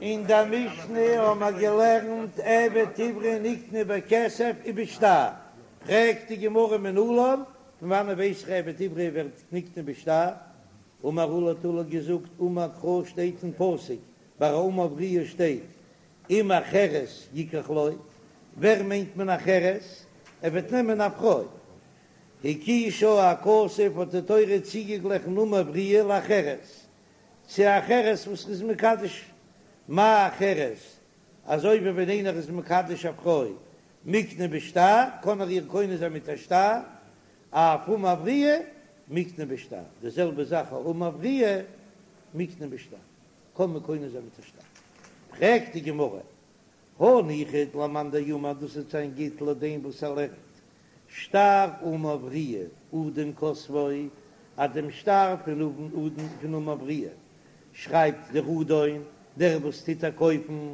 אין דער משנה האבן מיר געלערנט עבד עברי נקנה בכסף ובשטר, פרעגט די גמרא מנלן, פון וואנען ווייס איך עבד עברי ווערט נקנה בשטר? אמר עולא האט עולא געזאגט אמר קרא שטייט אין פסוק ביי א אמה עבריה שטייט אם אחרת יקח לו, ווער מיינט מען אחרת? ער וועט נעמען א פרוי. הקישה הכתוב האט די תורה צוגעגליכן אמה עבריה לאחרת, צו אחרת וואס איז מקדש מה אחרת, אזוי ווי ווען איינער איז מקדש א פרוי מקנה בשטר קען ער איר קונה זיין מיט א שטר, אף אמה עבריה מקנה בשטר, די זעלבע זאך א אמה עבריה מקנה בשטר קען מען קונה זיין מיט א שטר. פרעגט די גמרא, הניחא למאן דאמר דאס וועט זיין גוט לויט דעם וואס ער לערנט שטר אמה עבריה אדון כותבו, אז דעם שטר פון אדון פון אמה עבריה שרייבט דער אדון, דער וואס טוט איר קויפן,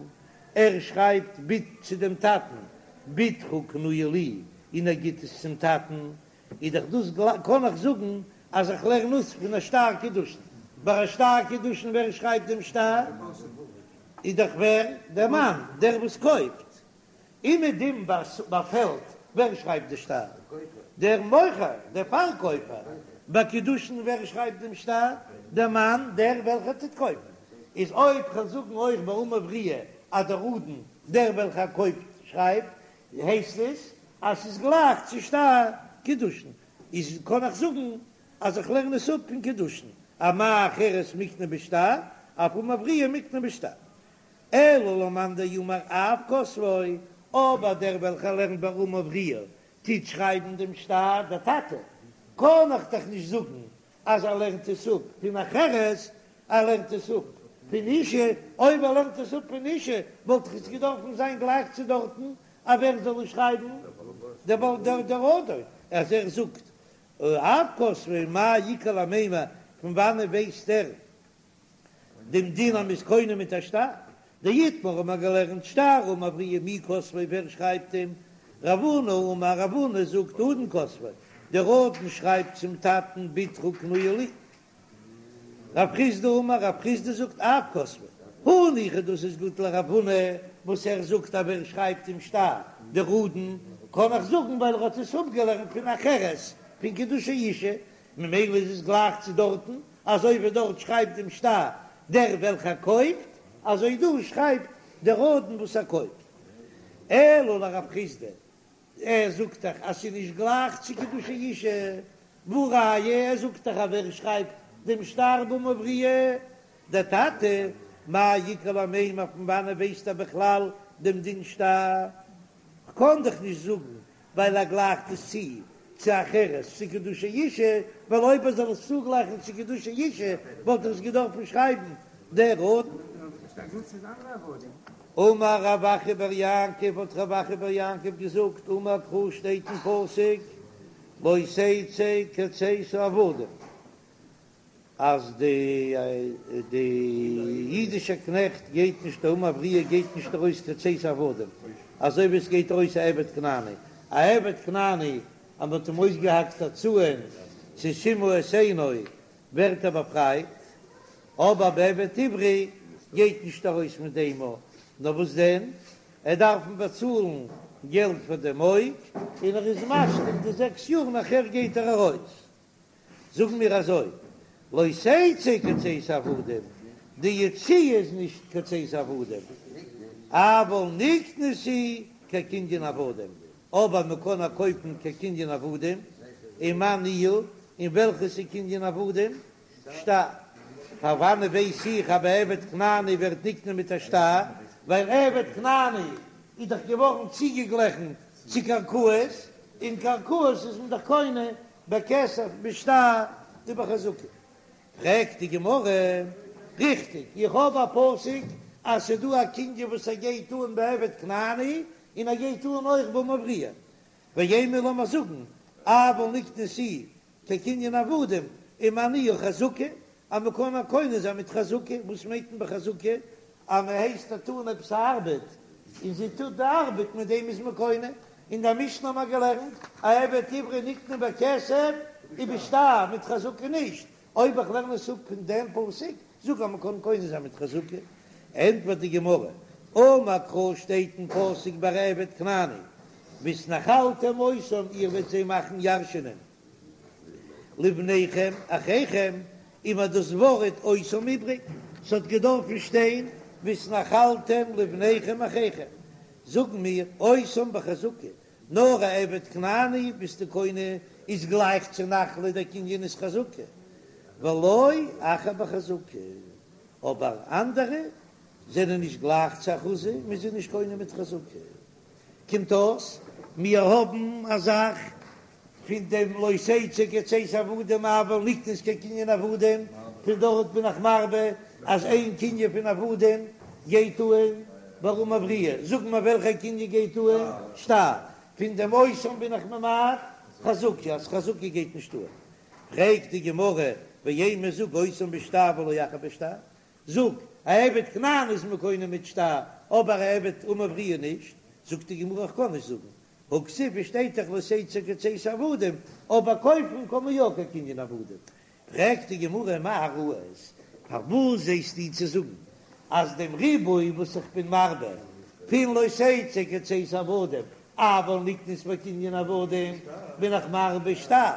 ער שרייבט בת צו דעם טאטן, בתך קנויה לי, און ער גיט עס צום טאטן, איז דאך דאס קען איך זאגן אז איך לערן אויס פון א שטר קידושין, ביי א שטר קידושין ווער שרייבט דעם שטר? איז דאך ווער? דער מאן, דער וואס קויפט. אומעדום ביי פעלד, ווער שרייבט די שטר? דער מוכר, דער פארקויפער. ביי קידושין ווער שרייבט דעם שטר? דער מאן, דער וועלכער טוט קויפן. איז אויב כ'וועל זאגן אויך ביי אמה עבריה אז דער אדון, דער וועלכער קויפט, שרייבט, הייסט עס אז ס'איז גלייך צו שטר קידושין. איז קען איך זאגן אז איך לערן עס אפ פון קידושין, אז מה אחרת מקנה בשטר, אף אמה עבריה מקנה בשטר. אלא למאן דאמר אב כותבו, אבער דער וועלכער לערנט ביי אמה עבריה טוט שרייבן דעם שטר, דער טאטע, קען איך דאך נישט זאגן אז ער לערנט עס אפ פון אחרת, ער לערנט עס אפ פון אישה, אויב ער לערנט עס אפ פון אישה וואלט דאך עס געדארפן זיין גלייך צו דארטן, אז ווער זאל עס שרייבן? דער אדון, אז ער זאגט אב כותבו מאי איכא למימר, פון וואנען ווייסט ער דעם דין אז מ'איז קונה מיט א שטר? דאיתמר האט מען געלערנט שטר אמה עבריה מי כותבו ווער שרייבט אים? רב הונא אמר רב הונא זאגט אדון כותבו, דער אדון שרייבט צום טאטן בתך קנויה לי. רב חסדא אמר רב חסדא זאגט אב כותבו, הניחא דאס איז גוט לרב הונא וואס ער זאגט אז ווער שרייבט דעם שטר דער אדון, קען איך זאגן ווייל ער האט עס אפגעלערנט פון אחרת פון קידושי אישה, ממילא איז עס גלייך צו דארטן, אזוי ווי דארט שרייבט דעם שטר דער וועלכער קויפט, אזוי דא שרייבט דער אדון וואס ער קויפט. אלא לרב חסדא, ער זאגט דאך אז ס'איז נישט גלייך צו קידושי אישה, והא ראיה ער זאגט דאך אז ווער שרייבט דעם שטר באמה עבריה? דער טאטע, מאי איכא למימר פון וואנען ווייסט ער בכלל דעם דין שטר? כ'קען דאך נישט זאגן ווייל ער גלייכט עס צו צו אחרת צו קידושי אישה, ווייל אויב ער זאל עס צוגלייכן צו קידושי אישה וואלט ער עס געדארפן שרייבן דער אדון. אמר רב אחא בר יעקב האט רב אחא בר יעקב געזאגט אמר קרא שטייט אין פסוק לא תצא כצאת העבדים אז די די אידישע קנעכט גייט נישט אמה עבריה גייט נישט ארויס כצאת העבדים אזוי ווי עס גייט ארויס א עבד כנעני א עבד כנעני אז מען האט אים אויסגעהאקט א צאהן צו סימא את עינו ווערט ער באפרייט אבער ביי עבד עברי גייט נישט ארויס מיט דעם נאר וואס דען ער דארף אים באצאלן געלט פאר דעם אויג און ער איז משלים די זעקס יאר נאכער גייט ער ארויס. זאגן מיר אזוי, לא תצא כצאת העבדים, די יציאה איז נישט כצאת העבדים, אבל נקנית היא כקנין עבדים, אבער מען קען איר קויפן כקנין עבדים, ומאי ניהו, און וועלכעס איז קנין עבדים? שטר. פון וואנען ווייס איך אז ביי עבד כנעני ווערט נקנה מיט א שטר, ווייל עבד כנעני איז דאך געווארן צוגעגליכן צו קרקעות, און קרקעות איז מען דאך קונה בכסף בשטר ובחזקה. פרעגט די גמרא, ריכטיג, איך האב א פסוק אז ס'איז דא א קנין וואס ער גייט אן בעבד כנעני און ער גייט אן אויך באמה עבריה, ואימא לאמיר זאגן אבל נקנית היא כקנין עבדים ומאי ניהו חזקה, אז מען קען איר קונה זיין מיט חזקה, וואס מיינט מען בחזקה? אז מען הייסט איר טון עפעס א ארבעט און זי טוט די ארבעט מיט דעם איז מען קונה, אין דער משנה האט מען געלערנט א עבד עברי נקנה בכסף ובשטר, מיט חזקה נישט, אויב איך לערן עס אפ פון דעם פסוק, זאג אז מען קען קונה זיין מיט חזקה. ענטפערט די גמרא, אמר קרא שטייט אין פסוק ביי עבד כנעני, והתנחלתם אותם איר וועט זיי מאכן ירשענען לבניכם אחריכם, איז מיר דאס ווארט אותם איבריג, ס'האט געדארפן שטיין והתנחלתם לבניכם אחריכם, זאגן מיר אותם בחזקה, נאר א עבד כנעני ביסטו קונה איז גלייך צו נחלה דער קנין איז חזקה, ולא אחר בחזקה, אבער אנדערע זענען נישט גלייך צו אחוזה, מ'איז זיי נישט קונה מיט חזקה. קומט אויס מיר האבן א זאך פון דעם לא תצא כצאת עבדים אבל נקנית כקנין עבדים, פון דארט בין איך מרבה אז איין קנין פון עבדים גייט אהן ביי אמה עבריה, זאג מיר וועלכע קנין גייט אהן שטר, פון דעם אותם בין איך ממעט חזקה אז חזקה גייט נישט אהן, פרעגט די גמרא ואימא זאג אותם בשטר ולא אחר בשטר, זאג, א עבד כנעני איז מען קונה מיט שטר, אבער א עבד אמה עבריה נישט, זאגט די גמרא איך קען נישט זאגן, הכתיב עס שטייט דאך לא תצא כצאת עבדים, אבער קויפן קען מען יא כקנין עבדים. פרעגט די גמרא מה ראית, פארוואס זעסטו צו זאגן אז דעם ריבוי וואס איך בין מרבה פון לא תצא כצאת עבדים אבל נקנית בקנין עבדים בין איך מרבה שטר,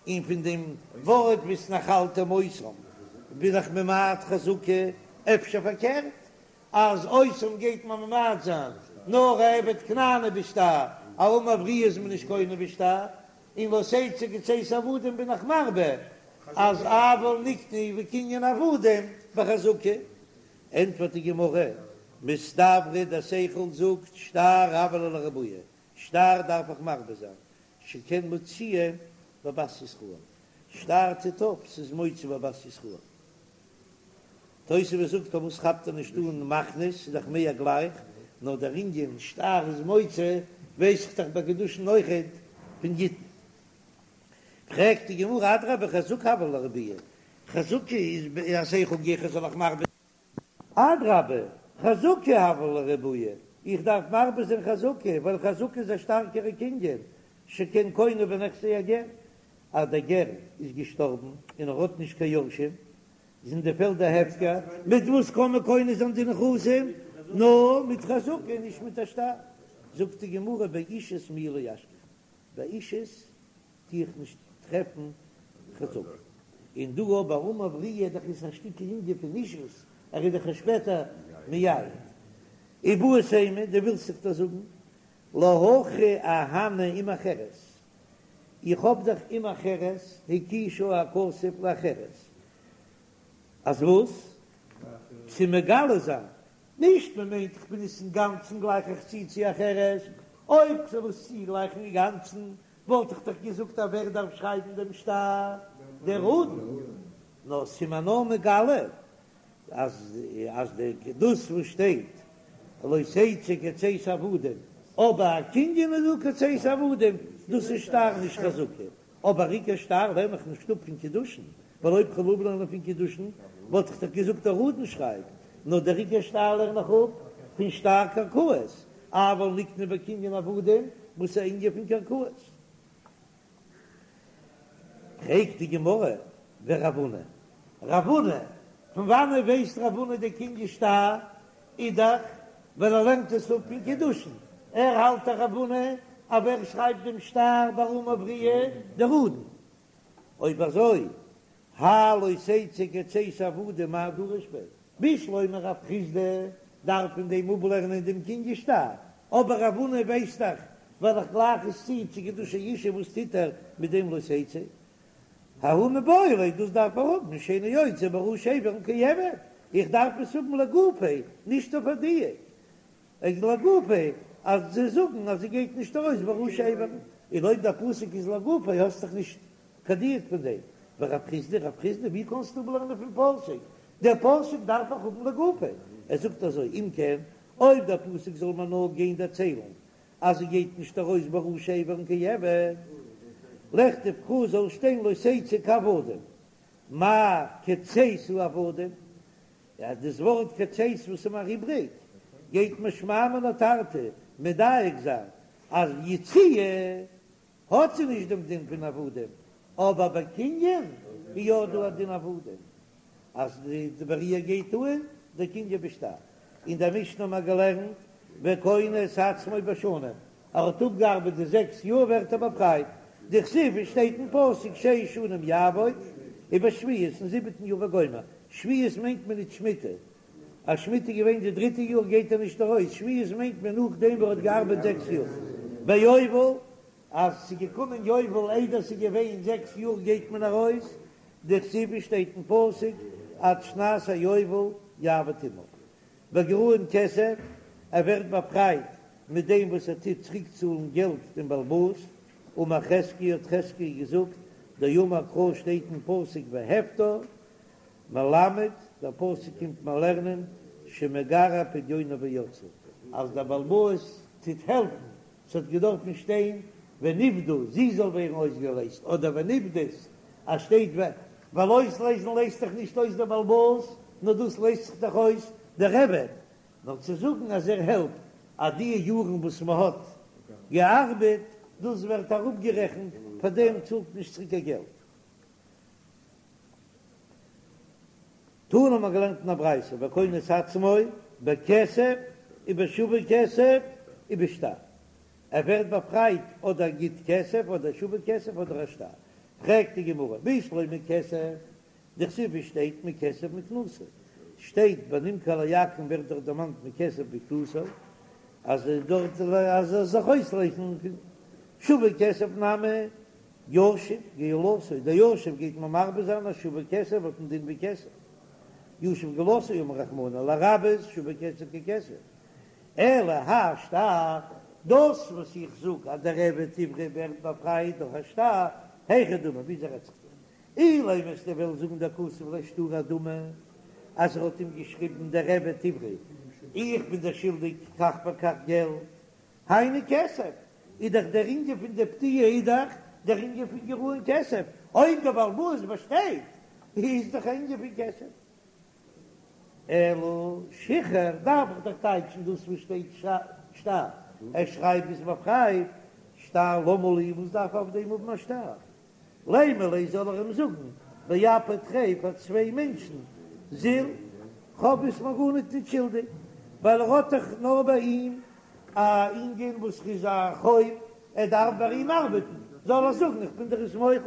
און פון דעם ווארט והתנחלתם אותם בין איך ממעט חזקה, אפשר פארקערט אז אותם גייט מען ממעט זיין נאר א עבד כנעני בשטר, א אמה עבריה איז מען נישט קונה בשטר, און לא תצא כצאת עבדים בין איך מרבה אז אבל נקנית בקנין עבדים בחזקה. ענטפערט די גמרא, מסתברא דער שכל זאגט שטר הוה ליה לרבויי, שטר דארף איך מרבה זיין, שכן מוציאה בבת ישראל, שטר טוט אויף ס'איז מוציא בבת ישראל. תוספות זאגט פארוואס כאפט ער נישט אן מכניס, ס'איז דאך מער גלייך, נאר דער ענין שטר איז מוציא ווייס איך דאך ביי קידושין אויכעט פון גיטין. פרעגט די גמרא אדרבה חזקה הוה ליה לרבויי, חזקה איז א שכל גיכער זאל איך מרבה אדרבה חזקה הוה ליה לרבויי, איך דארף מרבה זיין חזקה ווייל חזקה איז א שטארקערע קנין, שכן קונה בנכסי הגר, אז דער גר איז געשטארבן און ער האט נישט קיין יורשים, זענען די פעלדער הפקר, מיט וואס קען מען קונה זיין די נכסים? נאר מיט חזקה, נישט מיט א שטר. זאגט די גמרא באישות מיהא לא אשכחן, ביי אישות טו איך נישט טרעפן חזקה, און דא אבער אמה עבריה דאך איז א שטיקל ענין פון אישות, ער איז דאך שפעטער מייעד. איבעית אימא, דו ווילסט זיך דאס זאגן, להכי אהני אם אחרת, איך האב דאך אם אחרת הקישה הכתוב לאחרת, אז וואס? צו מגלה זיין, נישט מען מיינט איך בין עס אינגאנצן גלייך איך צו צו אחרת, אויב כ'זאל עס צוגלייכן אינגאנצן וואלט איך דאך געזאגט אז ווער דארף שרייבן דעם שטר? דער אדון, נאר ס'איז מיר נאר מגלה אז אז די דאס וואס שטייט לא תצא כצאת עבדים, אבער א קנין איז דא כצאת עבדים, דאס איז שטר נישט חזקה, אבער עיקר שטר לערן איך נישט אפ פון קידושין, ווייל אויב כ'וועל אפלערנען פון קידושין וואלט איך דאך געזאגט דער אדון שרייבט, נאר דער עיקר שטר לערן איך אפ פון שטר קרקעות, אבל נקנה בקנין עבדים וואס איז א ענין פון קרקעות. פרעגט די גמרא, ורב הונא, רב הונא, פון וואנעט ווייסט רב הונא די קנין שטר איז דאך ווייל ער לערנט עס אפ פון קידושין, ער האלט דאך רב הונא אז ווער שרייבט דעם שטר ביי אמה עבריה דער אדון, אויב אזוי האי לא תצא כצאת עבדים מאי דריש ביה, בשלמא רב חסדא דארף פון דעם אפלערנען דעם קנין שטר, אבער רב הונא ווייסט דאך ווייל איך גלייך עס צו צו קידושי אשה וואס טוט ער מיט דעם לא תצא? ההוא מיבעי ליה דאס דארף ער האבן שאינו יוצא בראשי אברים כעבד, איך דארף עס האבן לגופיה נישט אויף א דיוק, איז לגופיה אז זיי זאגן אז זי גייט נישט ארויס בראשי אברים, און אויב דער פסוק איז לגופיה האסט דאך נישט קיין דיוק פון דעם, ורב חסדא, רב חסדא ווי קענסטו אפלערנען פון פסוק? דער פסוק דארף איך האבן לגופיה, ער זאגט אזוי אם כן אויב דער פסוק זאל מיר נאר גיין דערציילן אז זי גייט נישט ארויס בראשי אברים כעבד, לכתוב קרא זאל שטיין לא תצא כעבדים, מאי כצאת העבדים, אז דאס ווארט כצאת וואס איז מיר איבריג, גייט מיר שמע מינה תרתי מדייק זיין אז יציאה האט זי נישט דעם דין פון עבדים, אבער ביי קנין איז יא דא א דין עבדים, אז די ביי איר גייט אן דער קנין בשטר. אין דער משנה האבן מיר געלערנט וקונה את עצמו בשנים, ער האט אפגעארבעט די זעקס יאר ווערט ער באפרייט, דכתיב עס שטייט אין פסוק שש שנים יעבוד ובשביעית אין זיבעטן יאר וגומר, שביעית מיינט מען נישט שמיטה, אז שמיטה איז געווען די דריטע יאר גייט ער נישט ארויס, שביעית מיינט מען נאכדעם וואס ער האט געארבעט זעקס יאר, ביובל אז ס'איז געקומען יובל איידער ס'איז געווען זעקס יאר גייט מען ארויס, דכתיב עס שטייט אין פסוק עד שנת היובל יעבוד עמך, בגרעון כסף, ער ווערט באפרייט מיט דעם וואס ער טוט צוריקצאלן געלט דעם בעל הבית, אמר חזקיה האט חזקיה געזאגט, דאמר קרא שטייט אין פסוק והפדה, מלמד, דער פסוק קומט מיר לערנען שמגרע פדיונה ויוצאה, אז דער בעל הבית טוט העלפן, ס'האט געדארפן שטיין ונפדה, זי זאל ווערן אויסגעלייזט, אדער ונפדית, אז שטייט ו, ווייל אויסלייזן לייזט דאך נישט אויס דער בעל הבית, נאר דאס לייזט זיך דאך אויס דער עבד, נאר צו זאגן אז ער העלפט אז די יארן וואס מען האט געארבעט, דאס ווערט אראפגערעכנט, פאר דעם צאלט נישט צוריק קיין געלט. תנא האט מען געלערנט אין א ברייתא וקונה את עצמו בכסף ובשווה כסף ובשטר, ער ווערט באפרייט אדער גיט כסף אדער שווה כסף אדער א שטר, פרעגט די גמרא בשלמא כסף, דכתיב עס שטייט מכסף מקנתו, שטייט ביי נמכר לעכו"ם ווערט דאך דערמאנט מכסף מקנתו, אז דארט אז ער זאל זיך אויסלייזן פון שווה כסף נמי ישיב גאולתו, דער ישיב גייט מען מרבה זיין אז שווה כסף האט א דין ווי כסף, ישיב גאולתו אמר רחמנא לרבות שווה כסף ככסף, אלא האי שטר, דאס וואס איך זאג אז דער עבד עברי ווערט באפרייט דורך א שטר, היכי דמי, וויאזוי רעדט זיך דא? אילימא וועסטו וועלן זאגן דכתב ליה שטרא אדמי, אז ער האט אים געשריבן דער עבד עברי, איך בין דיר שולדיג כך וכך געלט, היינו כסף, איז דאך דער ענין פון די פדיה איז דאך דער ענין פון גרעון כסף, אויב דער בעל הבית באשטייט איז דאך א ענין פון כסף. אלא שחרור דארף איך דאך טייטשן דאס וואס שטייט שטר, ער שרייבט ביסט באפרייט, שטר למה לי, וואס דארף איך אויף דעם האבן א שטר? לימא ליה זאל ער אים זאגן באפי תרי פאר צוויי מענטשן זיל כ'האב ביסט מיר גארניט ניט שולדיג ווייל ער האט דאך נאר ביי אים א ענין וואס איז א חוב ער דארף ביי אים ארבעטן זאל ער זאגן איך בין דיר עס מוחל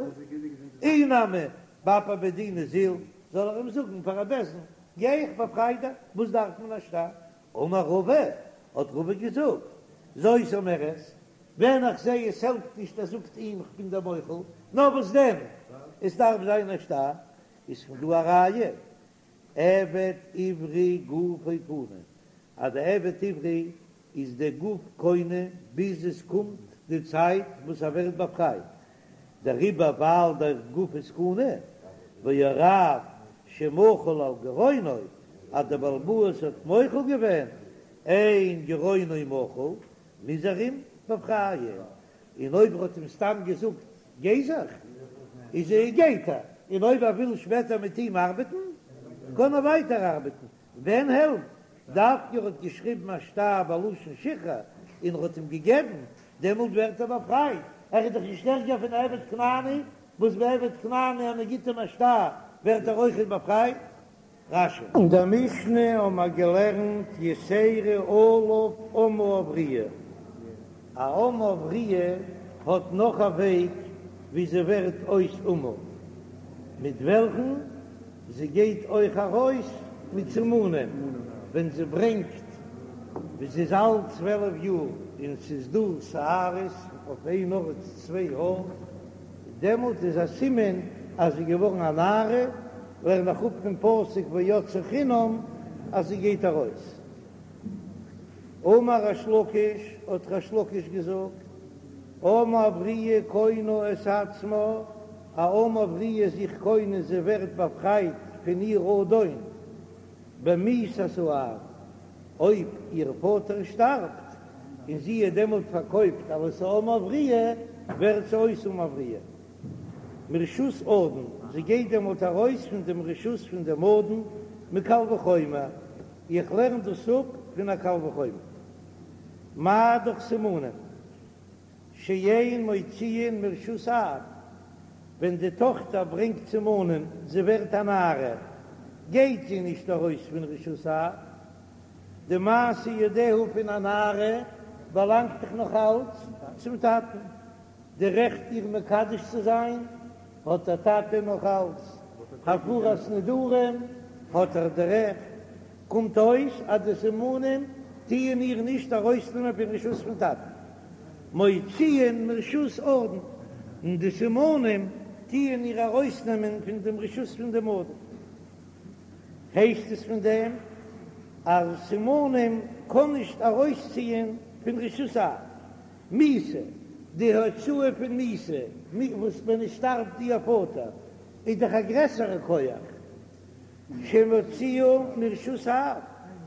אי נמי באפי בי דינא זיל זאל ער אים זאגן פאר א בית דין גיי איך באפריי דיך וואס דארף מען א שטר אמר רבא האט רבא געזאגט זאת אומרת ווען איך זע עס העלפט נישט ער זאגט אים איך בין דיר מוחל, נאר וואס דען עס דארף זיין א שטר, איז פון דא א ראיה עבד עברי גופו קנוי אז די עבד עברי איז די גוף קונה ביז עס קומט די צייט וואס ער ווערט באפרייט, דעריבער ווייל דער גוף איז קנוי, והרב שמחל על גרעונו אז דער בעל הבית האט מוחל געווען, אין גרעונו מחול, מוז ער אים באפרייען, און אויב ער האט אים סתם געזאגט גיי זיך, איז ער גייט ער, און אויב ער וויל שפעטער מיט אים ארבעטן, קען ער ווייטער ארבעטן, ווען העלפט דווקא ער האט געשריבן א שטר בלשון שחרור און ער האט אים געגעבן, דעמאלט ווערט ער באפרייט, ער איז דאך נישט ערגער פון עבד כנעני, וואס ביי עבד כנעני אז מען גיט אים א שטר ווערט ער אויכעט באפרייט. רש"י. אין דער משנה האבן מיר געלערנט יתירה עליו אמה עבריה, א אמה עבריה האט נאך א וועג ווי זי ווערט אויס אמה, מיט וועלכן זי גייט אויך ארויס מיט סימנים, ווען זי ברענגט ווי זי איז אלט 12 יאר און ס'איז דא שערות אויף איין ארט צוויי האר, דעמאלט איז א סימן אז זי איז געווארן א נערה, לערן איך אפ פון פסוק ויצאה חינם אז זי גייט ארויס. אמר ריש לקיש, האט ריש לקיש געזאגט, אמה עבריה קונה את עצמה, א אמה עבריה איז זיך קונה, זי ווערט באפרייט פון איר אדון במיתת האב, אויב איר פאטער שטארבט און זי איז דעמאלט פארקויפט אלס א אמה עבריה, ווערט זי אויס אמה עבריה. מרשות אדון, זי גייט דעמאלט ארויס פון דעם רשות פון דעם אדון, מקל וחומר, איך לערן דאס אפ פון א קל וחומר. מה דאך סימנים שאין מוציאין מרשות אב, ווען די טאכטער ברענגט סימנים, זי ווערט א נערה, גייט זי נישט ארויס פון רשות אב. די מעשה ידיה פון א נערה באלאנגט דאך נאך אלץ צום טאטן, די רעכט איר מקדש צו זיין האט דער טאטע נאך אלץ, הפרת נדרים האט ער די רעכט, קומט אויס אז די סימנים טוען איר נישט ארויסנעמען פון רשות פון טאטן, מוציאין מרשות אדון, און די סימנים טוען איר ארויסנעמען פון דעם רשות פון דעם אדון. הייסט עס פון דעם אז סימנים קען נישט ארויסציען פון רשות האב. מיתה, די הוצאה פון מיתה, וואס ווען עס שטארבט איר פאטער, איז דאך א גרעסערע כח, שמוציאה מרשות האב,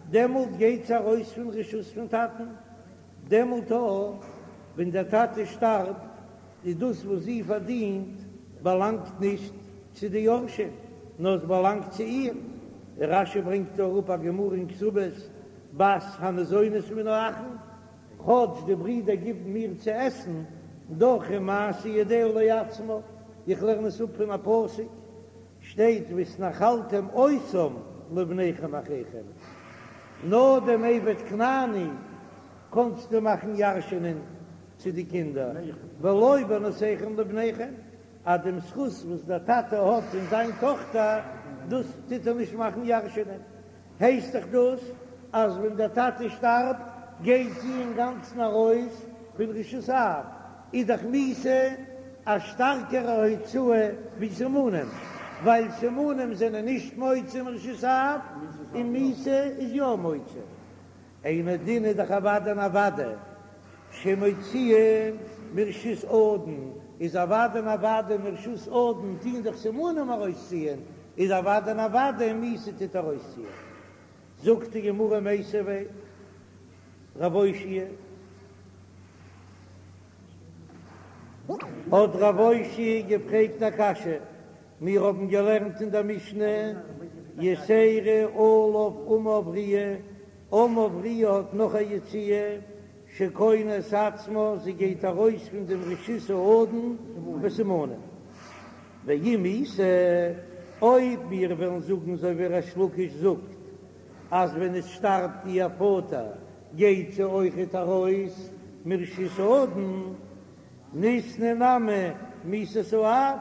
דעמאלט גייט זי ארויס פון רשות פון טאטן, דעמאלט אויך ווען דער טאטע שטארבט, איז דאס וואס זי פארדינט באלאנגט נישט צו די יורשים, נאר עס באלאנגט צו איר. רש"י ברענגט דא אראפ א גמרא אין כתובות, בת הניזונת מן האחין, כאטש די ברידער גיבן מיר צו עסן, דאך איז מעשה ידיה לעצמה, איך לערן עס אפ פון א פסוק, שטייט והתנחלתם אותם לבניכם אחריכם, נאר דעם עבד כנעני קענסטו מאכן ירש'ענען צו די קינדער, ולא בנותיכם לבניכם, אז דעם זכות וואס דער טאטע האט אין זיין טאכטער, דאס טוט ער נישט מאכן ירש'ענען. הייסט דאך דאס אז ווען דער טאטע שטארבט גייט זי אינגאנצן ארויס פון רשות האב, איז דאך מיתה א שטארקערע הוצאה ווי סימנים, ווייל סימנים זענען נישט מוציא מרשות האב און מיתה איז יא מוציא. אינו דין איז דאך אוודאי און אוודאי שמוציאה מרשות אדון, איז אוודאי און אוודאי מרשות אדון טוהן דאך סימנים ארויסציען, איז אוודאי און אוודאי מיתה טוט ארויסציען. זאגט די גמרא מיתיבי רב אושעיא, האט רב אושעיא געפרעגט א קשיא, מיר האבן געלערנט אין דער משנה, יתירה עליו אמה עבריה, אמה עבריה האט נאך א יציאה, שקונה את עצמה, זי גייט ארויס פון דעם רשות האדון בסימנים. ואם איתא, אויב מיר וועלן זאגן אזוי ווי ריש לקיש זאגט, אז ווען עס שטארבט איר פאטער גייט זי אויכעט ארויס מרשות האדון, ניתני נמי מיתת האב,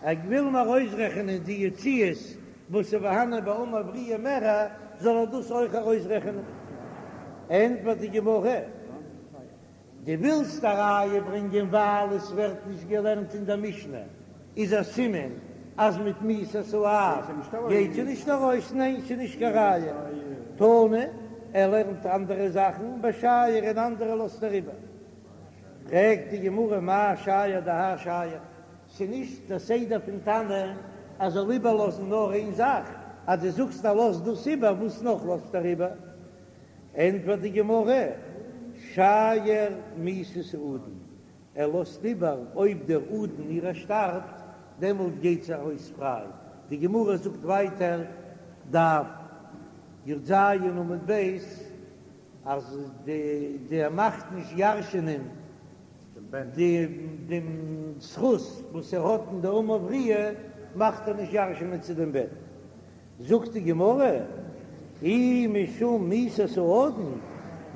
ער וויל נאר אויסרעכענען די יציאות וואס איז פארהאנען ביי אמה עבריה מער, זאל ער דאס אויך ארויסרעכענען. ענטפערט די גמרא, דו ווילסט א ראיה ברענגען ווייל עס ווערט נישט געלערנט אין דער משנה, איז א סימן אז מיט מיתת האב גייט זי נישט ארויס, ניין ס'איז נישט קיין ראיה, תנא, ער לערנט אנדערע זאכן ושייר און אנדערע לאזט ער איבער. פרעגט די גמרא מאי שייר דהאי שייר, ס'נישט דער סדר פון תנא אז זאל איבערלאזן נאר איין זאך, אז דו זאגסט ער לאזט דאס איבער, וואס נאך לאזט ער איבער? ענטפערט די גמרא, שייר מיתת האדון, ער לאזט איבער אויב דער אדון אירע שטארבט, דעמאלט גייט זי ארויס פריי, די גמרא זאגט ווייטער, דף י"ז עמוד ב', אז די ער מאכט נישט ירש'ענען די דעם זכות וואס ער האט אין די אמה עבריה מאכט ער נישט ירש'ענען צו דעם בן. זאגט די גמרא, אי משום מיתת האדון,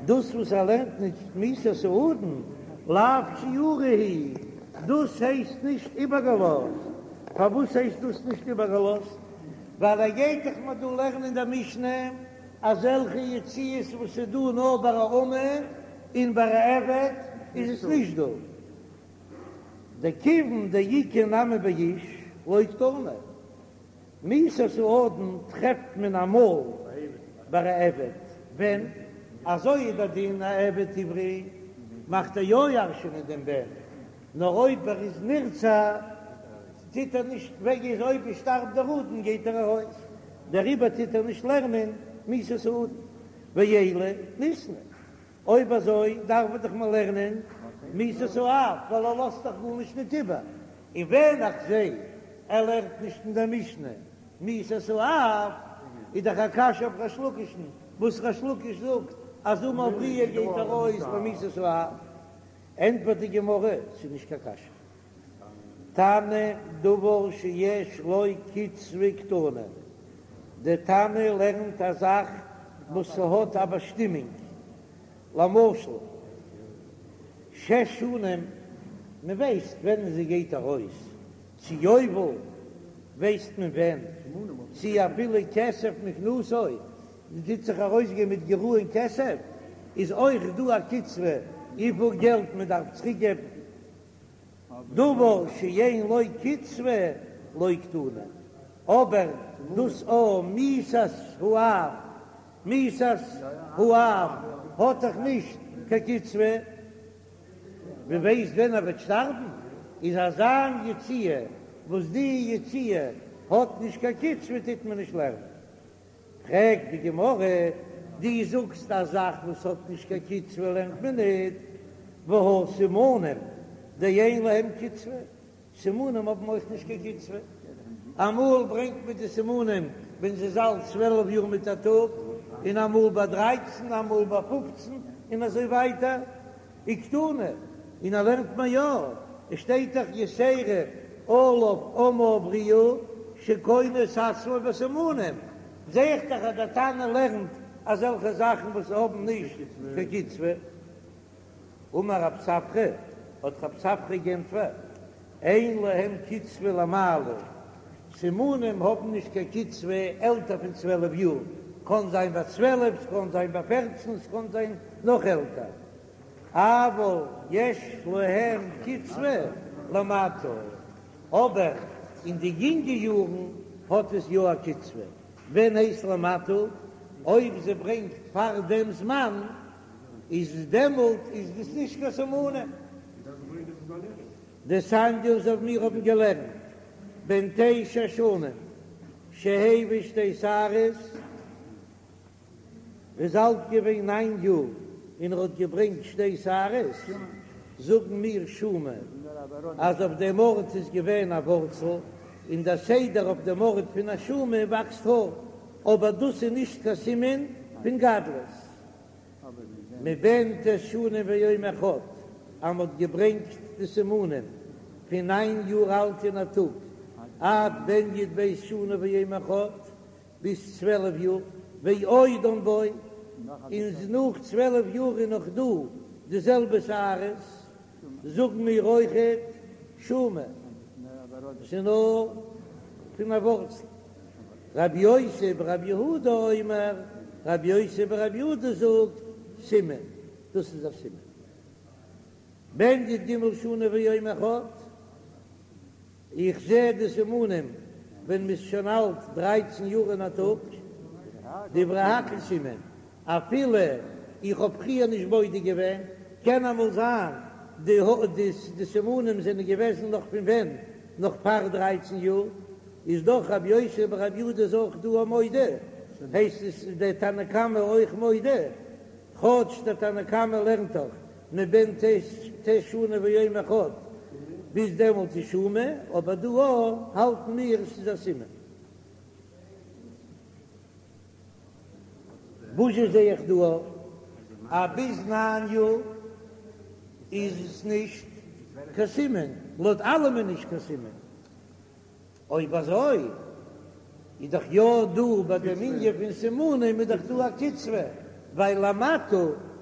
דאס וואס ער לערנט נישט מיתת האדון, לאו שיורא הוא, דאס הייסט נישט איבערגעלאזט. פארוואס הייסט דאס נישט איבערגעלאזט? ווייל ער גייט דאך מיר דא לערנען אין דער משנה אזעלכע יציאות וואס איז דא נאר ביי א אמה און ביי א עבד איז עס נישט דא. דכיון דאיכא נמי באיש לא קתני, מיתת האדון טרעפט מען אמאל ביי א עבד, ווען אזוי איז דער דין א עבד עברי מאכט ער יא ירש'ענען דעם בן, נאר אויב ער איז נרצע טוט ער נישט וועג איז אויב עס שטארבט דער אדון גייט ער ארויס, דעריבער טוט ער נישט לערנען מיתת האדון, ואלא ניתני, אויב אזוי דארף מען דאך מען לערנען מיתת האב ווייל ער לאזט דאך גארנישט ניט איבער, און ווען איך זע ער לערנט נישט אין דער משנה מיתת האב איז דאך א קשיא אויף ריש לקיש'ן וואס ריש לקיש זאגט אז אמה עבריה גייט ארויס במיתת האב, ענטפערט די גמרא ס'איז נישט קיין קשיא. תנא דבר שיש לו קצבה קתני, דער תנא לערנט א זאך. וואס ס'האט א באשטימונג, למשל שש שנים, מ'ווייסט ווען זי גייט ארויס, צו יובל ווייסט מען ווען, צו אפילו כסף מקנתו, מען טוט זיך ארויסגיין מיט גרעון כסף, איז אויך דא א קצבה וויפיל געלט מען דארף צוריק געבן, דבר שאין לו קצבה לא קתני, אבער דאס א מיתת האב, מיתת האב האט דאך נישט קיין קצבה. מען ווייסט ווען ער וועט שטארבן, איז אזא יציאה וואס די יציאה האט נישט קיין קצבה טוט מען נישט לערנען. פרעגט די גמרא, דו זאגסט א זאך וואס האט נישט קיין קצבה לערנט מען ניט, והא סימנים דאין להם קצבה, סימנים האבן אויך נישט קיין קצבה, אמאל ברענגט מען די סימנים ווען זי איז אלט 12 יאר מיט א טאג, און אמאל ביי דרייצן, אמאל ביי פופצן, און אזוי ווייטער, וקתני, און ער לערנט מיר יא, עס שטייט דאך יתירה עליו אמה העבריה שקונה את עצמו בסימנים, זע איך דאך אז דער תנא לערנט אזעלכע זאכן וואס האבן נישט קיין קצבה. אמר רב ספרא, האט רב ספרא גענטפערט, אין להם קצבה למעלה, סימנים האבן נישט קיין קצבה עלטער פון 12 יאר, קאן זיין ביי 12, ס'קאן זיין ביי 14, ס'קאן זיין נאך עלטער, אבל יש להם קצבה למטה, אבער אין די יונגע יארן האט עס יא א קצבה, ווען הייסט למטה? אויב זי ברענגט פאר דעם זמן איז דעמאלט איז דאס נישט קיין סימנים. דתניא אזוי ווי מיר האבן געלערנט בן תשע שנים שהביא שתי שערות, ער איז אלט געווען ניין יאר און ער האט געברענגט שתי שערות, זאגן מיר שומא אז אויף דעם ארט איז געווען א ווארצל, און דער סדר אויף דעם ארט פון א שומא וואקסט האר, אבער דאס איז נישט קיין סימן פון גדלות. מבן ט' שנים ויום אחד, אז מ'האט געברענגט די סימנים פון ניין יאר אלט און א טאג, עד בן י"ב שנה ויום אחד, ביז 12 יאר, ועודן בו, און נאך 12 יאר איז נאך דא די זעלבע שערות, זאגן מיר אויכעט שומא, ס'איז נאר פון א ווארצל. רבי יוסי ברבי יהודה אומר, רבי יוסי ברבי יהודה זאגט, סימן, דאס איז א סימן. בן י"ג שנה ויום אחד, איך זע די סימנים ווען מ'איז שוין אלט דרייצן יאר און א טאג, דברי הכל סימן, אפילו איך האב פריער נישט בודק געווען, קען אמאל זיין די סימנים זענען געוועזן נאך פון ווען? נאך פאר דרייצן יאר, איז דאך רבי יוסי ברבי יהודה איז אויך דא א מודה, הייסט עס איז דער תנא קמא אויך מודה, כאטש דער תנא קמא לערנט דאך מבן ט' שנה ויום אחד ביז דעמאלט איז שומא, אבער דא האלטן מיר עס איז א סימן. וואס זשע זע איך דא אז ביז ניין יאר איז עס נישט קיין סימן, לויט אלעמען נישט קיין סימן. אויב אזוי איז דאך יא דא ביי דעם ענין פון סימנים איז דאך דא א קצבה, ווייל למטה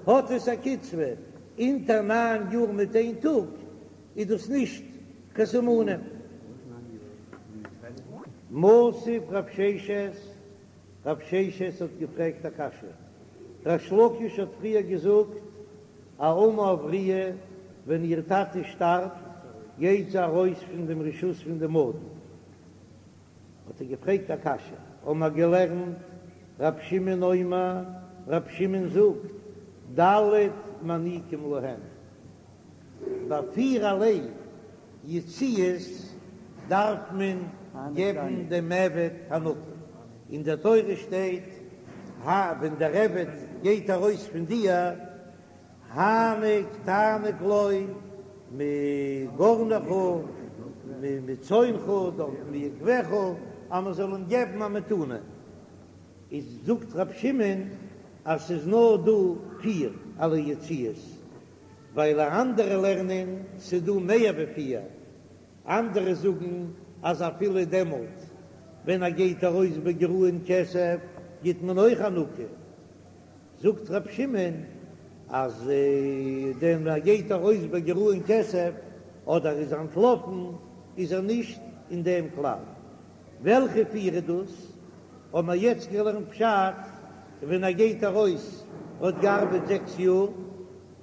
האט עס א קצבה, אונטער ניין יאר מיט איין טאג איז דאס נישט קיין סימנים. מתיב רב ששת, רב ששת האט געפרעגט א קשיא, ריש לקיש האט פריער געזאגט א אמה עבריה ווען איר טאטע שטארבט גייט זי ארויס פון דעם רשות פון דעם אדון, האט ער געפרעגט א קשיא, האבן מיר געלערנט רב שמעון אומר, רב שמעון זאגט ד' מעניקים להם, ביי פירערליי יציאות דארף מען געבן דעם עבד הענקה, אין דער תורה שטייט ה ווען דער עבד גייט ארויס פון דיר, הענק תעניק לו מגרנך ומצאנך דארט מיקבך אז מען זאל אים געבן א מתנה, איז זאגט רב שמעון אז ס'איז נאר דא פירערליי יציאות, ווייל אנדערע לערנען ס'איז דא מער ווי פיר, אנדערע זאגן אז אפילו דעמאלט ווען ער גייט ארויס בגרעון כסף גיט מען אויך הענקה. זאגט ר' שמעון אז דען ער גייט ארויס בגרעון כסף אדער איז אנטלאפן איז ער נישט אין דעם כלל. וועלכע פיר איז דאס? האבן מיר יעצט געלערנט פשט ווען ער גייט ארויס האט געארבעט זעקס יאר,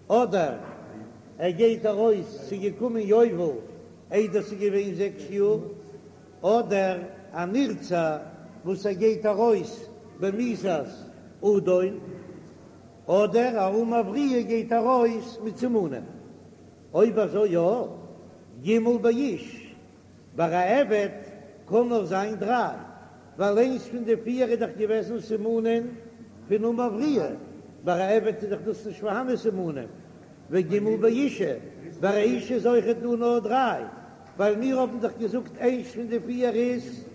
אדער ער גייט ארויס ס'איז געקומען יובל איידער ס'איז געווען זעקס יאר, אדער א נרצע וואס ער גייט ארויס במיתת אדון, אדער א אמה עבריה גייט ארויס מיט סימנים. אויב אזוי יא, ג' באיש, ביי א עבד קען נאר זיין דריי, ווייל איינס פון די פיר איז דאך געוועזן סימנים פון אמה עבריה, ביי א עבד איז דאך דאס נישט פארהאנען סימנים, וג' באישה, ביי א אישה איז אויכעט דא נאר דריי, ווייל מיר האבן דאך געזאגט איינס פון די פיר איז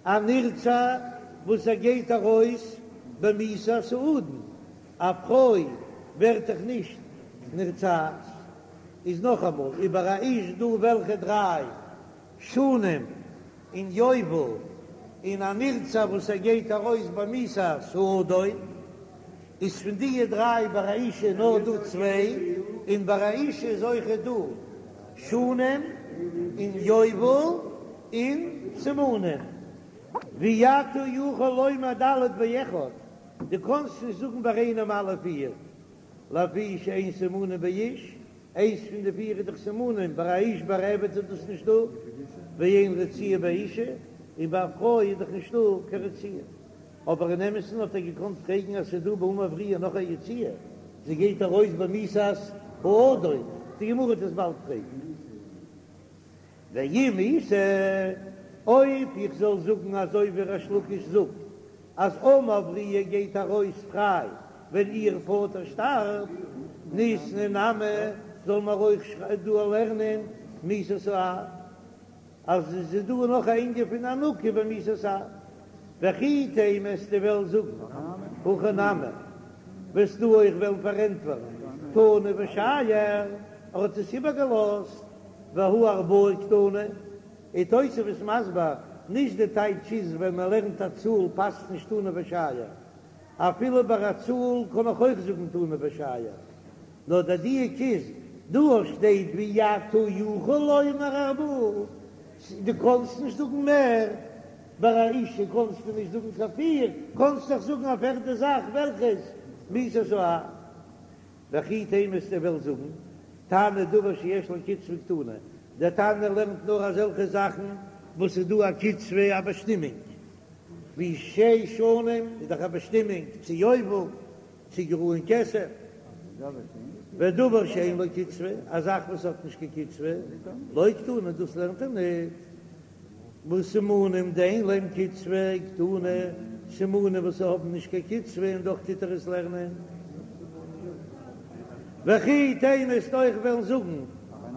א נרצע וואס ער גייט ארויס במיתת האדון, א פרוי ווערט דאך נישט נרצעת. איז נאכאמאל איבער א איש דא וועלכע דריי שנים און יובל און א נרצע וואס ער גייט ארויס במיתת האדון איז פון דיע דריי ביי א אישה נאר דא צוויי און ביי א אישה איז אויכעט דא שנים און יובל און סימנים ואי אתה יכול לומר ד' באחד דו קאנסט נישט זאגן ביי איינעם אלע פיר לפי שאין סימנים באיש, איינס פון די פיר איז דאך סימנים, ביי א איש ביי א עבד איז דאס נישט דא, ואין רציעה באישה, און ביי א פרוי איז דאך נישטא קיין רציעה. אבער אין אמת'ן האט ער געקאנט פרעגן אז ס'איז דא ביי אמה עבריה נאך א יציאה, זי גייט ארויס במיתת האדון, די גמרא וועט עס באלד פרעגן. ואם איתא, אויב איך זאל זאגן אזוי ווי ריש לקיש זאגט אז אמה עבריה גייט ארויס פריי ווען איר פאטער שטארבט, ניתני נמי, זאל מען אויך דא לערנען מיתת האב, אז עס איז דא נאך א ענין פון הענקה במיתת האב. וכי תימא וועסטו וועלן זאגן הכי נמי, וועסטו אויך וועלן פארענטפערן תנא ושייר, ער האט עס איבערגעלאזט. והא ארבעה קתני, איז תוספות מסביר, נישט די טייטש איז ווען מען לערנט א צאל פאסט נישט תנא ושייר, אפילו ביי א צאל קען איך אויך זאגן תנא ושייר, נאר דער דיוק איז דא שטייט ואי אתה יכול לומר ארבעה, דו קאנסט נישט זאגן מער, ביי א אישה קאנסטו נישט זאגן קיין פיר, קאנסט דאך זאגן א פערטע זאך וועלכעס מיתת האב. וכי תימא וועסטו וועלן זאגן, תנא דבר שיש לו קצבה קתני, דער תנא לערנט נאר אזעלכע זאכן וואס איז דא א קצבה א באשטימונג, ווי שש שנים איז דאך א באשטימונג צו יובל, צו גרעון כסף, ודבר שאין לו קצבה, א זאך וואס האט נישט קיין קצבה, לא קתני, דאס לערנט ער ניט. וואס סימנים דאין להם קצבה קתני, סימנים וואס האבן נישט קיין קצבה און דאך טוט ער עס לערנען. וכי תימא וועסט אויך וועלן זאגן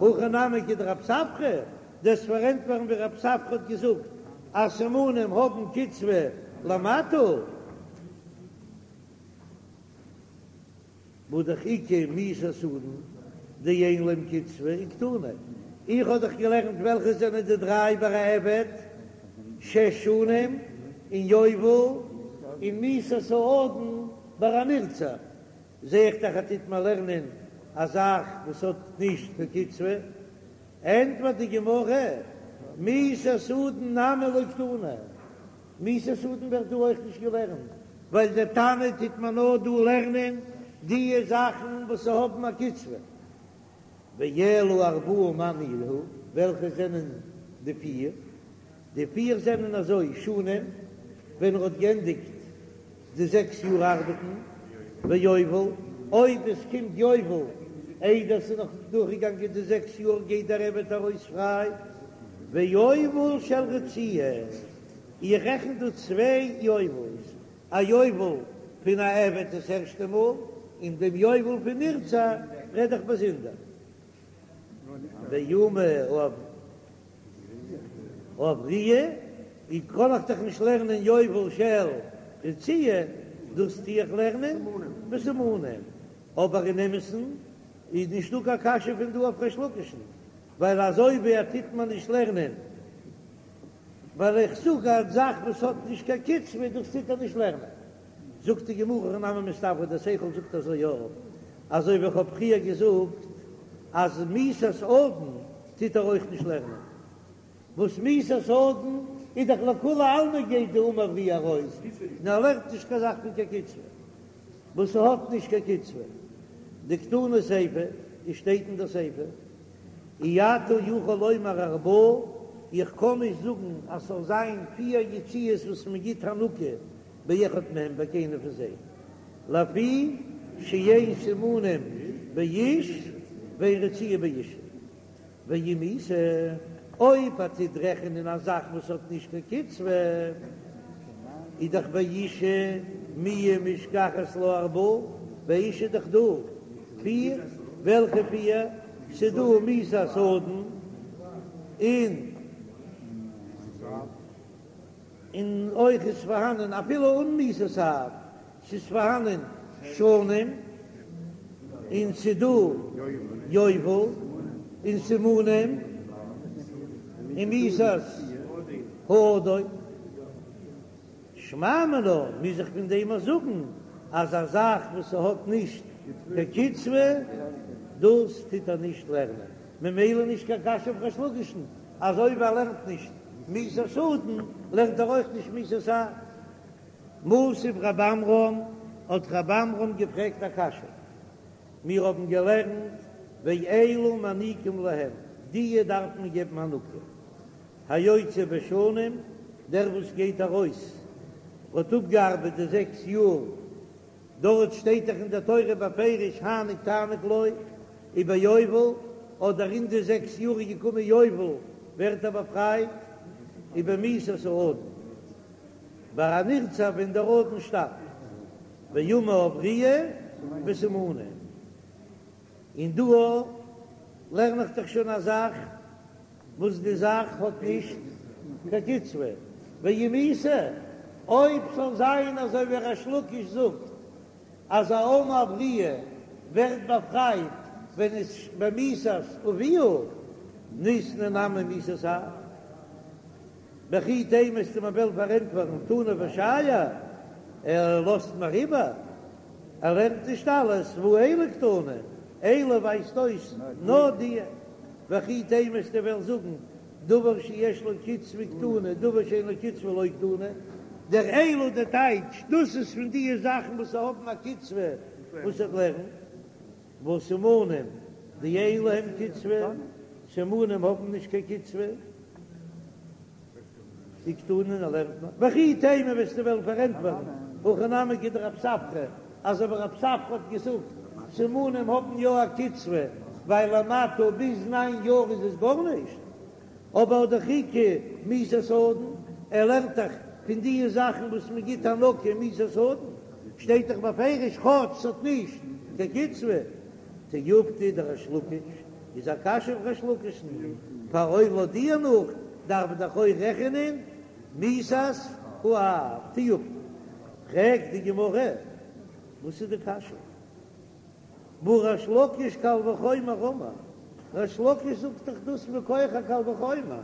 הכי נמי כדרב ספרא, דאס פארענטפערן ווי רב ספרא האט געזאגט אז סימנים האבן קצבה למטה. והא דאך איכא מיתת אדון דאין להם קצבה וקתני, איך האב דאך געלערנט וועלכע זענען די דריי ביי א עבד, שש שנים און יובל און מיתת האדון ביי א נרצע, זע איך דאך אז טוט מען לערנען א זאך וואס האט נישט קיין קצבה, ענטפערט די גמרא, מיתת אדון נמי לא קתני. מיתת אדון ווערט דא אויך נישט געלערנט, ווייל דער תנא טוט מען נאר דא לערנען דיע זאכן וואס האבן א קצבה. ואלא ארבעה מאי ניהו, וועלכע זענען די פיר? די פיר זענען אזוי, שנים, ווען ער האט גענדיגט די זעקס יאר ארבעטן, ויובל, אויב עס קומט יובל איידער ס'איז נאך דורכגעגאנגען די זעקס יאר גייט דער עבד ארויס פריי, ויובל של רציעה, איך רעכן דא צוויי יובל'ס, א יובל פון א עבד דאס ערשטע מאל, און דעם יובל פון נרצע רעד איך באזונדער. ואמה העבריה, ווי קען איך דאך נישט לערנען יובל של רציעה, דאס טו איך לערנען בסימנים, אבער אין אמת'ן איז נישטא קיין קשיא פון דא אויף ריש לקיש'ן, ווייל אזוי ווי ער טוט מען נישט לערנען, ווייל איך זאג א זאך וואס האט נישט קיין קצבה, דאס טוט ער נישט לערנען. זאגט די גמרא הכי נמי מסתברא, דער שכל זאגט אזוי יא, אזוי ווי איך האב פריער געזאגט אז מיתת אדון טוט ער אויך נישט לערנען, וואס מיתת אדון איז דאך לכולי עלמא גייט די אמה העבריה ארויס, און ער לערנט נישט קיין זאך פון קיין קצבה וואס ס'האט נישט קיין קצבה, דקתני סיפא, עס שטייט אין דער סיפא, אי אתה יכול לומר ארבעה, איך קען נישט זאגן אז ס'זאל זיין פיר יציאות וואס מ'גיט הענקה באחד מהם ביי קיינער פון זיי, לפי שאין סימנים באיש ואין רציעה באישה. ואם איתא, אויב ער טוט רעכענען א זאך וואס האט נישט קיין קצבה, איז דאך באישה מיהא משכחת לה ארבעה, ביי אישה איז דאך דא פיר, וועלכע פיר? ס'דא מיתת אדון און און אויך איז פארהאנען אפילו אן מיתת אב, ס'איז פארהאנען שנים און ס'דא יובל און סימנים און מיתת האדון. שמע מינה מוז איך פון דעם אויך זאגן אז א זאך וואס ס'האט נישט קיין קצבה דאס טוט ער נישט לערנען, ממילא נישט קיין קשיא אויף ריש לקיש'ן אז אויב ער לערנט נישט מיתת אדון לערנט ער אויך נישט מיתת אב. מתיב רב עמרם, האט רב עמרם געפרעגט א קשיא, מיר האבן געלערנט ואלו מעניקים להם, דיע דארף מען געבן הענקה, היוצא בשנים, דער וואס גייט ארויס האט אפגעארבעט די זעקס יאר, דארט שטייט דאך אין דער תורה בפירוש הענק תעניק לו, וביובל, אדער אין די זעקס יאר איז געקומען יובל ווערט ער באפרייט, ובמיתת האדון. ביי א נרצע ווען דער אדון שטארבט, ואמה העבריה וסימנים, און דא לערן איך דאך שוין א זאך וואס די זאך האט נישט קיין קצבה, ואם איתא, אויב ס'זאל זיין אזוי ווי ריש לקיש זאגט אז א אמה העבריה ווערט באפרייט ווען עס במיתת אביה, ניתני נמי מיתת אב. וכי תימא וועסטו מיר וועלן פארענטפערן תנא ושייר, ער לאזט מיר איבער, ער לערנט נישט אלעס, והא אלו קתני, אלו ווייזט אויס נאר די, וכי תימא וועסטו וועלן זאגן דבר שיש לו קצבה קתני, דבר שאין לו קצבה לא קתני, דער אלו דער טייטש, דאס איז פון די זאכן וואס האבן א קצבה וואס ער לערנט, והא סימנים דאין להם קצבה, סימנים האבן נישט קיין קצבה, וקתני און ער לערנט נאר, וכי תימא וועסטו וועלן פארענטפערן, הכי נמי כדרב ספרא, אזוי ווי רב ספרא האט געזאגט, סימנים האבן יא א קצבה, ווייל למטה ביז ניין יאר איז עס גארנישט, אבער דאך איכא מיתת אדון, ער לערנט דאך פון די זאכן וואס מען גיט הענקה מיתת אדון, שטייט דאך בפירוש כאטש ס'האט נישט קיין קצבה. תיובתא דריש לקיש איז א קשיא אויף ריש לקיש'ן, פאר אויב לויט דיר נאך דארף מען דאך אויך רעכענען מיתת האב תיובתא. פרעגט די גמרא וואס איז די קשיא? והא ריש לקיש קל וחומר אמר, ריש לקיש זאגט דאך דאס מכח א קל וחומר,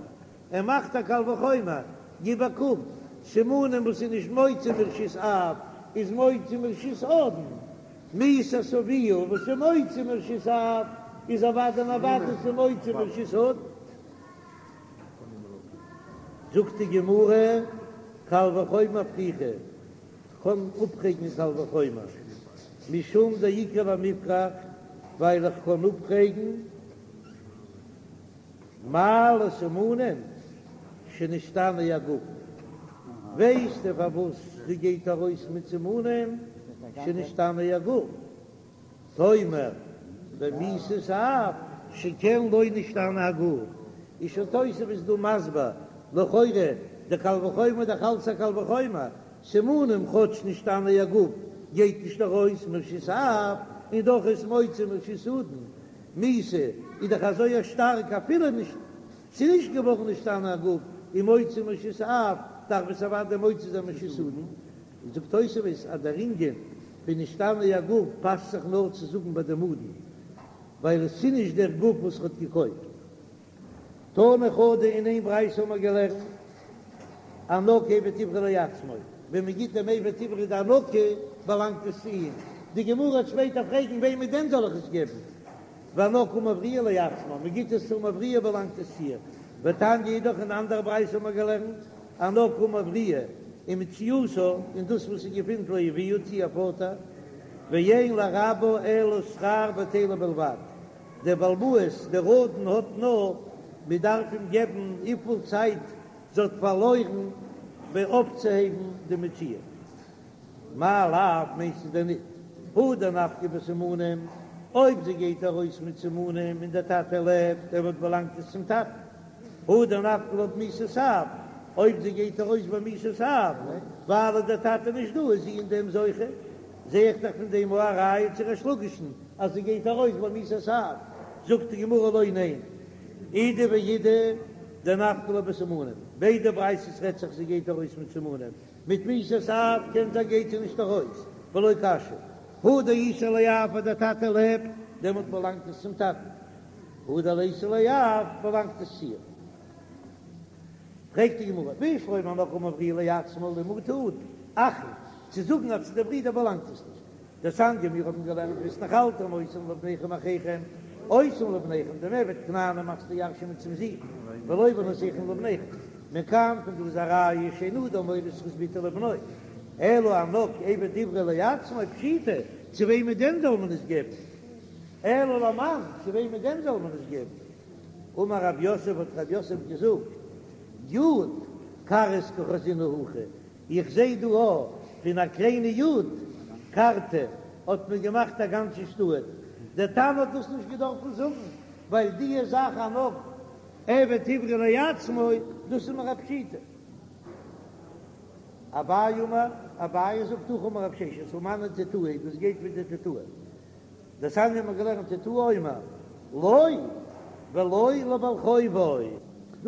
ער מאכט א קל וחומר, גיב א קוק, סימנים וואס איז נישט מוציא מרשות אב איז מוציא מרשות אדון, מיתת אביה וואס איז מוציא מרשות אב איז אוודאי און אוודאי ס'איז מוציא מרשות אדון. זאגט די גמרא, קל וחומר פריכא, כ'קען אפפרעגן קל וחומר, משום דאיכא למיפרך, ווייל איך קען אפפרעגן מה לסימנים שנשתנה הגוף, ווייסטו פארוואס זי גייט ארויס מיט סימנים שנשתנה הגוף, תאמר במיתת אב שכן לא נשתנה הגוף, איז שוין תוספות דא מסביר, לכאורה די קל וחומר דאך אלץ א קל וחומר, סימנים כאטש נשתנה הגוף גייט נישט ארויס מרשות אב, און דאך איז מוציא מרשות אדון, מיתה איז דאך אזוי א שטארק אפילו נישט ס'איז נישט געווארן נשתנה הגוף און מוציא מרשות אב דארף עס אוודאי מוציא זיין מרשות אדון, זאגט תוספות אז דער ענין פון נשתנה הגוף פאסט זיך נאר צו זאגן ביי דעם אדון ווייל עס איז נישט דער גוף וואס האט געקויפט. תנא חדא אין איין ברייתא האבן מיר געלערנט הענקה עבד עברי לעצמו, ווען מען גיט דעם עבד עברי די הענקה. באלאנגט עס צו אים, די גמרא וועט שפעטער פרעגן וועמען דען זאל איך עס געבן, והאנך אמה העבריה לעצמה, מען גיט עס צו אמה העבריה באלאנגט עס צו איר, ותניא אידך אין אנדערע ברייתא האט מען געלערנט, אנך אמה העבריה ומציאתה, און דאס וואס זי געפינט לאביה צו איר פאטער, ואין לרבה אלא שכר בטלה בלבד, דער בעל הבית, דער אדון האט נאר, מען דארף אים געבן וויפיל צייט זי האט פארלוירן ביי אויפצוהייבן די מציאה. מאי לאו מיינסטו דען ניט הא דנפקא בסימנים, אויב זי גייט ארויס מיט סימנים און דער טאטע לעבט, דעמאלט באלאנגט עס צום טאטן. הא דנפקא לה במיתת אב, אויב זי גייט ארויס ביי מיתת אב, ווייל איז דער טאטע נישט דא איז זי אין דעם זוכה. זע איך דאך פון דעם א ראיה צו ריש לקיש'ן אז זי גייט ארויס ביי מיתת אב. זאגט די גמרא לא ניין, אידי ואידי דנפקא לה בסימנים, ביידע ברייתות רעדט זיך זי גייט ארויס מיט סימנים, מיט מיתת אב קען זיין גייט זי נישט ארויס, ולא קשיא, הא דאיתיה לאב אז דער טאטע לעבט, דעמאלט באלאנגט עס צום טאטן, הא דליתיה לאב באלאנגט עס צו איר. פרעגט די גמרא, בשלמא אנך אמה העבריה לעצמה למעוטי אדון, אחין, צו זאגן אז צו די ברידער באלאנגט עס נישט, דתניא מיר האבן געלערנט והתנחלתם אותם לבניכם אחיכם, אותם לבניכם דעם עבד כנעני מאכסטו ירש'ענען צום זון, ולא בנותיכם לבניכם, מכאן פון דא איז א ראיה שאין אדם מוריש זכות בתו לבנו, אלא אנך עבד עברי לעצמו פשיטא, צו וועמען דען זאל מען עס געבן? אלא למאן, צו וועמען דען זאל מען עס געבן? אמר רב יוסף האט רב יוסף געזאגט, יוד כרעית קא חזינא הכא, איך זעה דא א פון א קליינע יוד קרתא האט מען געמאכט א גאנצע שטאט, דער תנא האט דאס נישט געדארפן זאגן, ווייל דיע זאך אנך עבד עברי לעצמו, דאס איז מיר א פשיטא. אביי אמר, אביי זאגט הכי אמר רב ששת, הא מני תותי, דאס גייט מיט די תותי. דתניא האבן מיר געלערנט תותי אומר לו ולא לבעל חובו.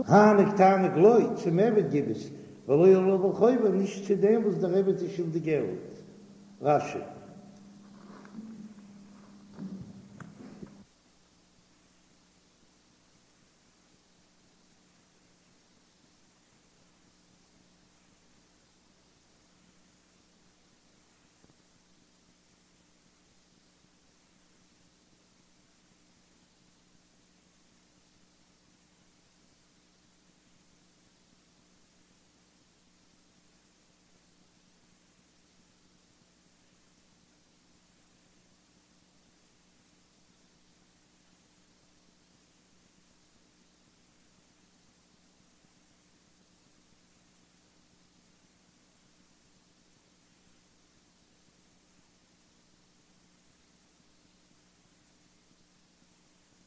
העניק תעניק לו, צום עבד גיב עס, ולא לבעל חובו, נישט צו דעם וואס דער עבד איז שולדיג געלט. רש"י.